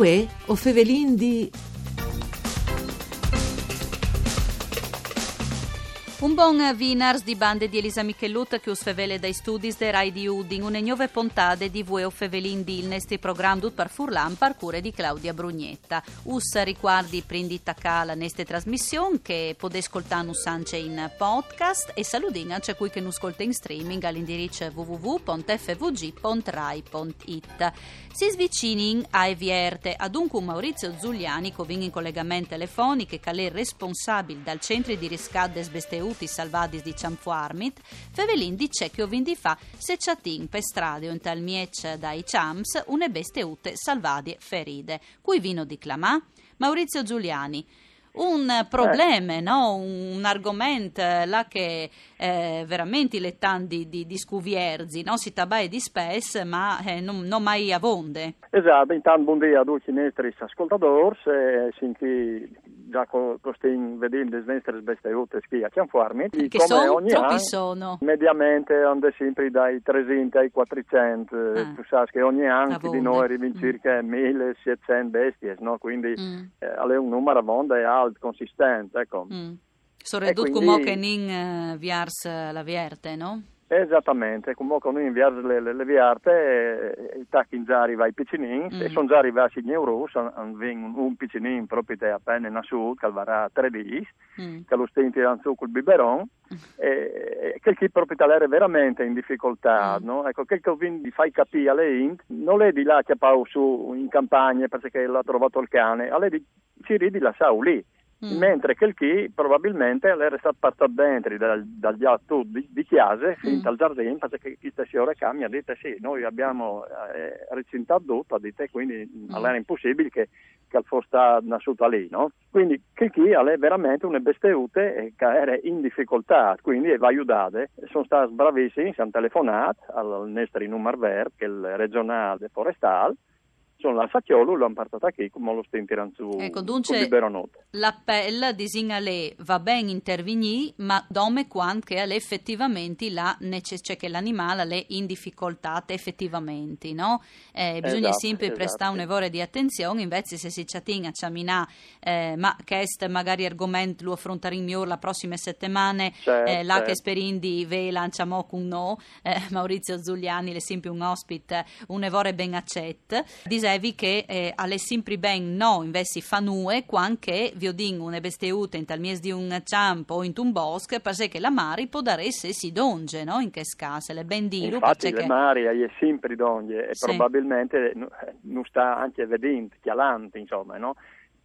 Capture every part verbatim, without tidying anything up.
Uè, o fevelin di... Un bon vinars di bande di Elisa Michelut che us fevele dai studis de Rai di Udin, une gnove pontade di Vuè o fevelin di, il nestri program dut par furlan par cure di Claudia Brugnetta. Us ricuardi prin di tacà la nestre trasmission che podè scoltânus ancje in podcast e saludìn ancje cui che nus scolte in streaming al indiriç w w w pont f v g pont rai pont i t. Si svicinin ae vierte, adun cun Maurizio Zuliani che o vin in colegament telefonic, che al è responsabil dal centri di riscat des besteutis salvadis di Cjanfuarmit, fevelìn di ce che o vin di fâ se cjatìn pe strade o intal mieç dai cjamps une besteute salvadie feride. Cui vino di clamâ? Maurizio Zuliani. Un probleme, no? Un, un argoment, eh, là che, eh, verementri al è tant di, di, di scuvierzi, no? Si tabaie dispès, ma, eh, no, no mai avonde. Esat, intant bundì a ducj i nestris ascoltadôrs, eh, sin chi za che o, che o stin vedint des nestris besteutes chi a Cjanfuarmit. Che come son? Ogni an, mediamente a 'nd è simpri dai tresinte ai cuatricent, eh, tu sâs che ogni an chi di nô a rivin cirche mil e sietcent bestiis, no? Cuindi, eh, al è un numar avonde alt, consistent, eco. Soredut cumò che o nin, eh, viers la vierte, no? Esatamentri, cumò che o nin viers le, le, le vierte, eh, a tachin za a rivâ i piçinins, e son za rivâts i gneurûts, a 'nd vin un, un piçinin propit a pene nassût, che al varà trê dîs, che lu stin tirant sù cul biberon, e, e chel chi propit al jere verementri in dificoltât, no? Eco, chel che o vin di fâi capî ae int, nol è di lâ a cjapâlu sù in campagne parcè che al à trovât il cane, al è di cirî di lassâlu li. Mentri chel chi probabilmentri al jere stât puartât dentri dal, dal gjat di, di cjase fin tal zardin, parcè che cheste siore ca mi à dit: "Sì, noi abbiamo, eh, recintât dut", à dit, "e cuindi al jere impussibil che, che al fos stât nassût li, no?" Cuindi chel chi al è verementri une besteute, eh, che e jere in dificoltât, cuindi e va judade. A son stâts bravissims, a àn telefonât al, al nestri numar vert, chel regjonâl de forestâl, a son lâts a cjolu, lu àn puartât achì, cumò lu stin tirant sù cul biberonut. Eco, duncje, l'apel, disìn, al è: va ben intervignî, ma dome cuant che al è efetivamentri la neces-, cioè che l'animâl al è in dificoltât efetivamentri, no? Eh, bisugne simpri prestâ une vore di atenzion, invezit se si cjatìn a cjaminâ, eh, ma chest magari argoment lu afrontarìn miôr la prossime setemane, eh, là che o sperìn di vêlu ancjemò cun nô, eh, Maurizio Zuliani al è simpri un ospit, eh, une vore ben acet. Disevi che, eh, al è simpri ben no invezit fâ nuie cuant che o viodìn une besteute intal mieç di un cjamp o intun bosc, parcè che la mari podarès jessi dongje, no? In chest câs al è ben dîlu, parcè che la mari e je simpri dongje e probabilmentri no, eh, nus sta ancje vedint, cjalant, insome, no?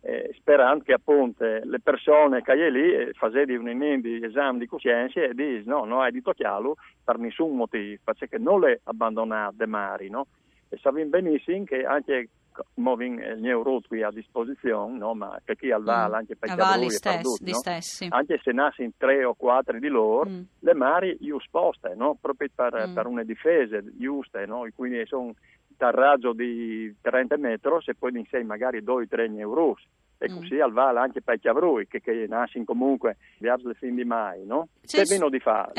Eh, sperant che apont, eh, le persone che e je li, eh, fasedi un inin di esam di cussience e dîs: "No, no ai di tocjâlu par nissun motîf, parcè che nol è abandonât de mari", no? E savìn benissim che ancje, cumò o vin, eh, il gneurut chi a disposizion, no? Ma che chi al vâl ancje pai cjavrui e par dut, no? Ancje se a nassin trê o cuatri di lôr, le mari ju sposte, no? Propit par, par une difese juste, no? E cuindi a son tal rajo di trente metris, e po a 'nd è magari doi, trê gneurûts. E cussì al vâl ancje pai cjavrui, che, che a nassin comunque viers le fin di Mai, no? Ce vino di fâ?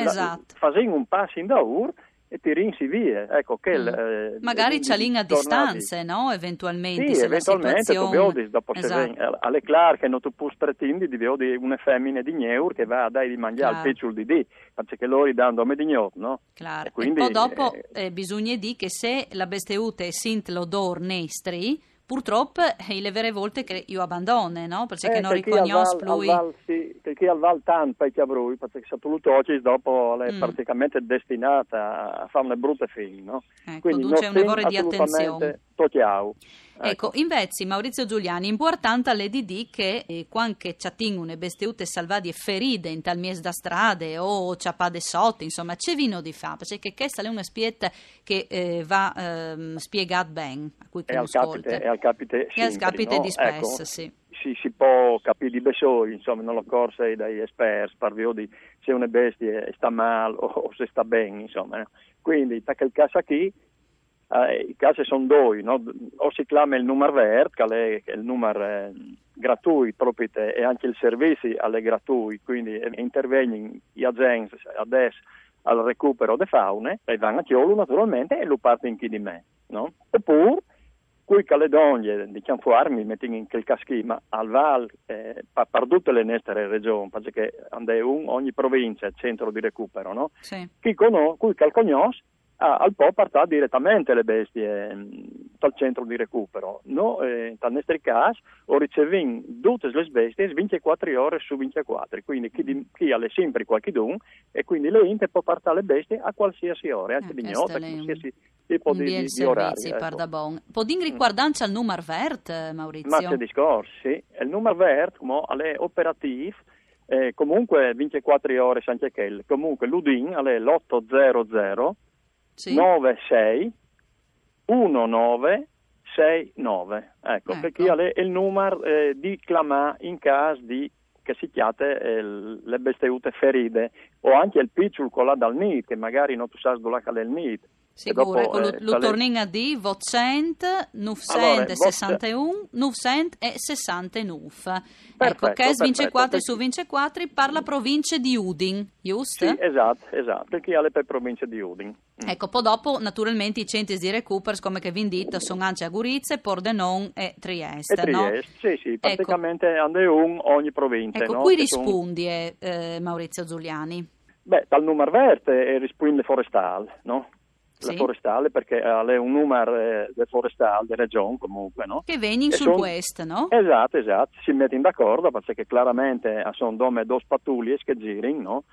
Fasìn un pas indaûr e tirìnsi vie, eco, chel, eh, magari cjalìn a distance, no? Eventualmentri, sì, se la situazion... Tu viodis, dopo se ven, al è clâr che no tu pûs pretindi di viodi une femine di gneur che e va a dâi di mangjâ al piçul di dì, parcè che lôr a 'nd àn dome di gnot, no? Clâr. E po dopo, eh, bisugne dî che se la besteute e sint l'odôr nestri, purtrop, eh, e je vere volte che ju abandone, no? Parcè che no ricognòs plui. Chel chi al vâl, sì, chel chi al vâl tant pai cjavrui, parcè che se tu lu tocis, dopo al è praticamentri destinât a, a fâ une brute fin, no? Eco, cuindi duncje une vore di atenzion. Tocjâlu. Eco, invezit, Maurizio Zuliani, impuartant al è di dî che, eh, cuant che cjatìn une besteute salvadie feride intal mieç da strade o cjapade sot, insome, ce vino di fâ? Parcè che chest al è un aspiet che, eh, va, ehm, spiegât ben a cui che nus scolte. E al capite simpri, no? Al capite dispès, sì. Si, si pues capî di bessôi, insome, no? Al cors dai esperts par viodi se une bestie e sta mâl o, o se e sta ben, insome, no? Cuindi, ta chel câs chi, eh, i câs a son doi, no? O si clame il numar vert, che al è il numar, eh, gratuit propit, e ancje il servizi al è gratuit, cuindi, eh, a intervegnin i agents adès al recupero de faune, e a van a cjolu naturalmentri e lu puartin chi di me, no? Opûr Cui che al è dongje, diciam, fuarmi, metìn in chel câs chi, ma al vâl, eh, pa-, par dute le nestre regjon, parcè che and è un ogni provincie, centro di recupero, no? Sì. Chi cono-, cui che al cognòs, ah, al pò puartâ diretamente le bestie, mm, tal centro di recupero. No, eh, tal nestri câs, o ricevìn dutis lis bestiis vincjecuatri ore su vincjecuatri, cuindi chi, di-, chi al è simpri cualchidun, e cuindi le int e pò puartâ le bestie a cualsiasi ore, ancje di gnot, a cualsiasi tipo di, di, di orari, ecco. Pardabon. Podìn ricuardâ ancje il numar vert, eh, Maurizio? Ma ce discors, sì. Il numar vert, cumò, al è operatîf, eh, comunque vincjecuatri ore ancje chel. Comunque, l'Udin al è l'oto zero zero nove sei uno nove sei nove. Ecco, ecco, parcè che al è il numar, eh, di clamâ in câs di che si cjate, eh, le bestiute feride, o ancje il piçul colât dal nît, che magari no tu sâs dulà che al è il nît. Sigûr, dopo, ecco, lu, eh, lu tornìn a dî: votcent, nûfcent e sessanteun, nûfcent e sessantenûf. Ecco, chest vincjecuatri su vincjecuatri par la provincie di Udin, just? Sì, esat, esat, parcè che al è pe provincie di Udin. Ecco, po dopo, naturalmentri, i centris di recuper, come che vin dit, a son ancje a Gurize, Pordenon e Triest, no? E Triest, sì, sì, praticamentri and è un ogni provincie, no? Ecco, cui rispundie, eh, Maurizio Zuliani? Beh, tal numar vert, eh, rispuint le forestâl, no? Le forestâl, parcè, eh, al è un numar, eh, de forestâl, de regjon, comunque, no? Che a vegnin sul puest, no? Esat, esat, si metin d'acuardi, parcè che claramentri a son dome dôs patuliis che a zirin, no?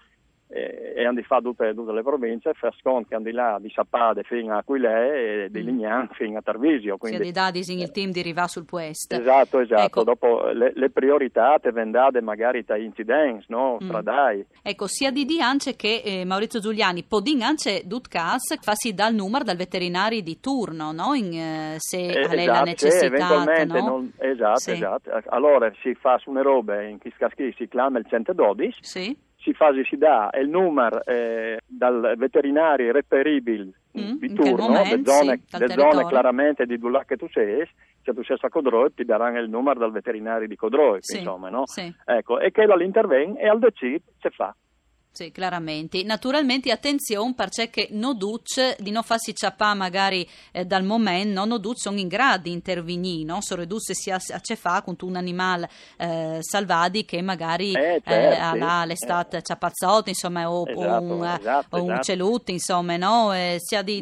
E, e a àn di fâ dute, dute le provincie, fâs cont che a àn di lâ di Sapade fin a Aquilee e di Lignan fin a Tarvisio, cuindi, sì, a àn di dâ, disìn, il timp di rivâ sul puest. Esat, esat. Ecco. Dopo le, le prioritât e ven dade magari tai incidents, no? Stradâi. Ecco, si à di dî ancje che, eh, Maurizio Zuliani, podìn ancje, dut câs, fâsi dâ il numar dal veterinari di turno, no? In, eh, se al è la necessitât, no? Esat, esat. Alore si fâs une robe, in chest câs chi si clame il cent e dodis, si fâs, si dà il numar, eh, dal veterinari reperibil di turno, de zone, de zone claramentri di dulà che tu sês, se tu sês a Codroip, ti daran il numar dal veterinari di Codroip, insome, no? Ecco, e chel al interven e al decît ce fâ. Sì, claramentri. Naturalmentri, atenzion, parcè che no ducj, di no fâsi cjapâ magari, eh, dal moment, no, no ducj a son in grât di intervignî, no? Soredut se si à, à ce fâ cuntun animâl, eh, salvadic che magari, eh, al è stât cjapât sot, insome, o, o un, o un ucelut, insome, no? Eh, si à di,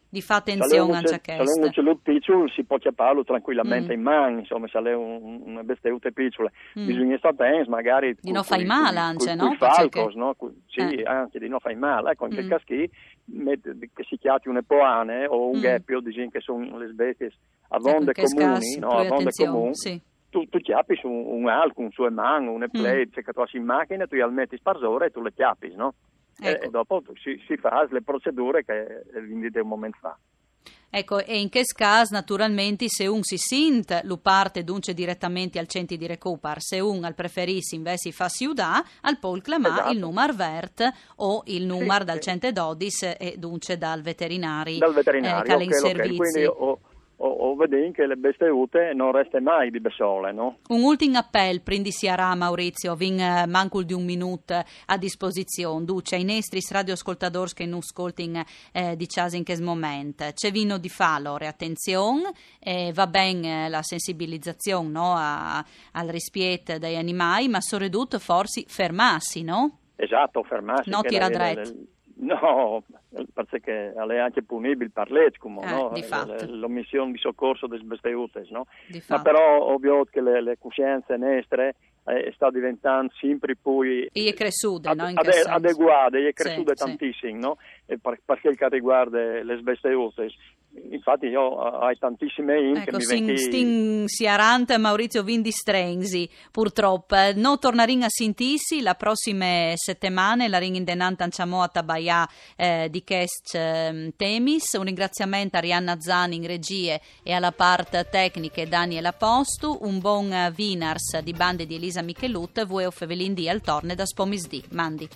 di fâ atenzion ancje a chest. Se al è un ucelut piçul si pò cjapâlu trancuilamentri in man, insome, se al è un, une bestiute piçule. Bisugne stâ atents magari di no fâi mâl ancje, no? Cui falcos, no? Sì, ancje di no fâi mâl. Ecco, in chel câs chi, che si cjati une poane o un ghepio, disìn che a son lis bestiis avonde comunis, no? Avonde comunis. Tu, tu cjapis un, un alc, un su e man, une plete, ce che tu âs in machine, tu jal metis parsore e tu le cjapis, no? Ecco. E dopo si, si fâs le procedure che, eh, vin dite un moment fa. Ecco, e in chest câs, naturalmentri, se un si sint, lu puarte duncje diretamentri al centri di recupar. Se un al preferìs invezit fâsi judâ, al pol clamâ il numar vert o il numar dal cent e dodis e duncje dal veterinari, eh, che al è in servizi. Quindi o, o, o vedìn che le bestiute no reste mai di bessole, no? Un ultin apel, prin di siarâ, Maurizio, vin, eh, mancul di un minut a disposizion. Ducj, ai nestris radioascoltadôrs che nus scoltin, eh, di cjase in chest moment. Ce vino di fâ, alore? Atenzion, eh, va ben, eh, la sensibilizazion, no, a, al rispiet dai animâi, ma soredut forsit fermâsi, no? Esat, fermâsi. No tirâ dret. No, parcè che al è ancje punibil par leç, cumò, no? Di fat. L'omission di socorso des bestiutes, no? Di fat. Ma però o viôt che le, le cussience nestre, eh, e sta diventant simpri plui... E je cressude, no? In chest sens. Adeguade, e je cressude tantissim, no? E par, par chel che al rivuarde lis bestiutes. Infati jo, eh, o ai tantissime int che mi ven chi. Ecco, stin, stin siarant, Maurizio, vin di strenzi, purtrop. No tornarìn a sintîsi la prossime setemane, larìn indenant ancjemò a tabaiâ, eh, di chescj, ehm, temis. Un ringraziament a Arianna Zan in regjie e a la part tecniche Daniel Apostu. Un bon, eh, vinars di bande di Elisa Michelut. Vuê o fevelìn di al torne dal pomisdì. Mandi.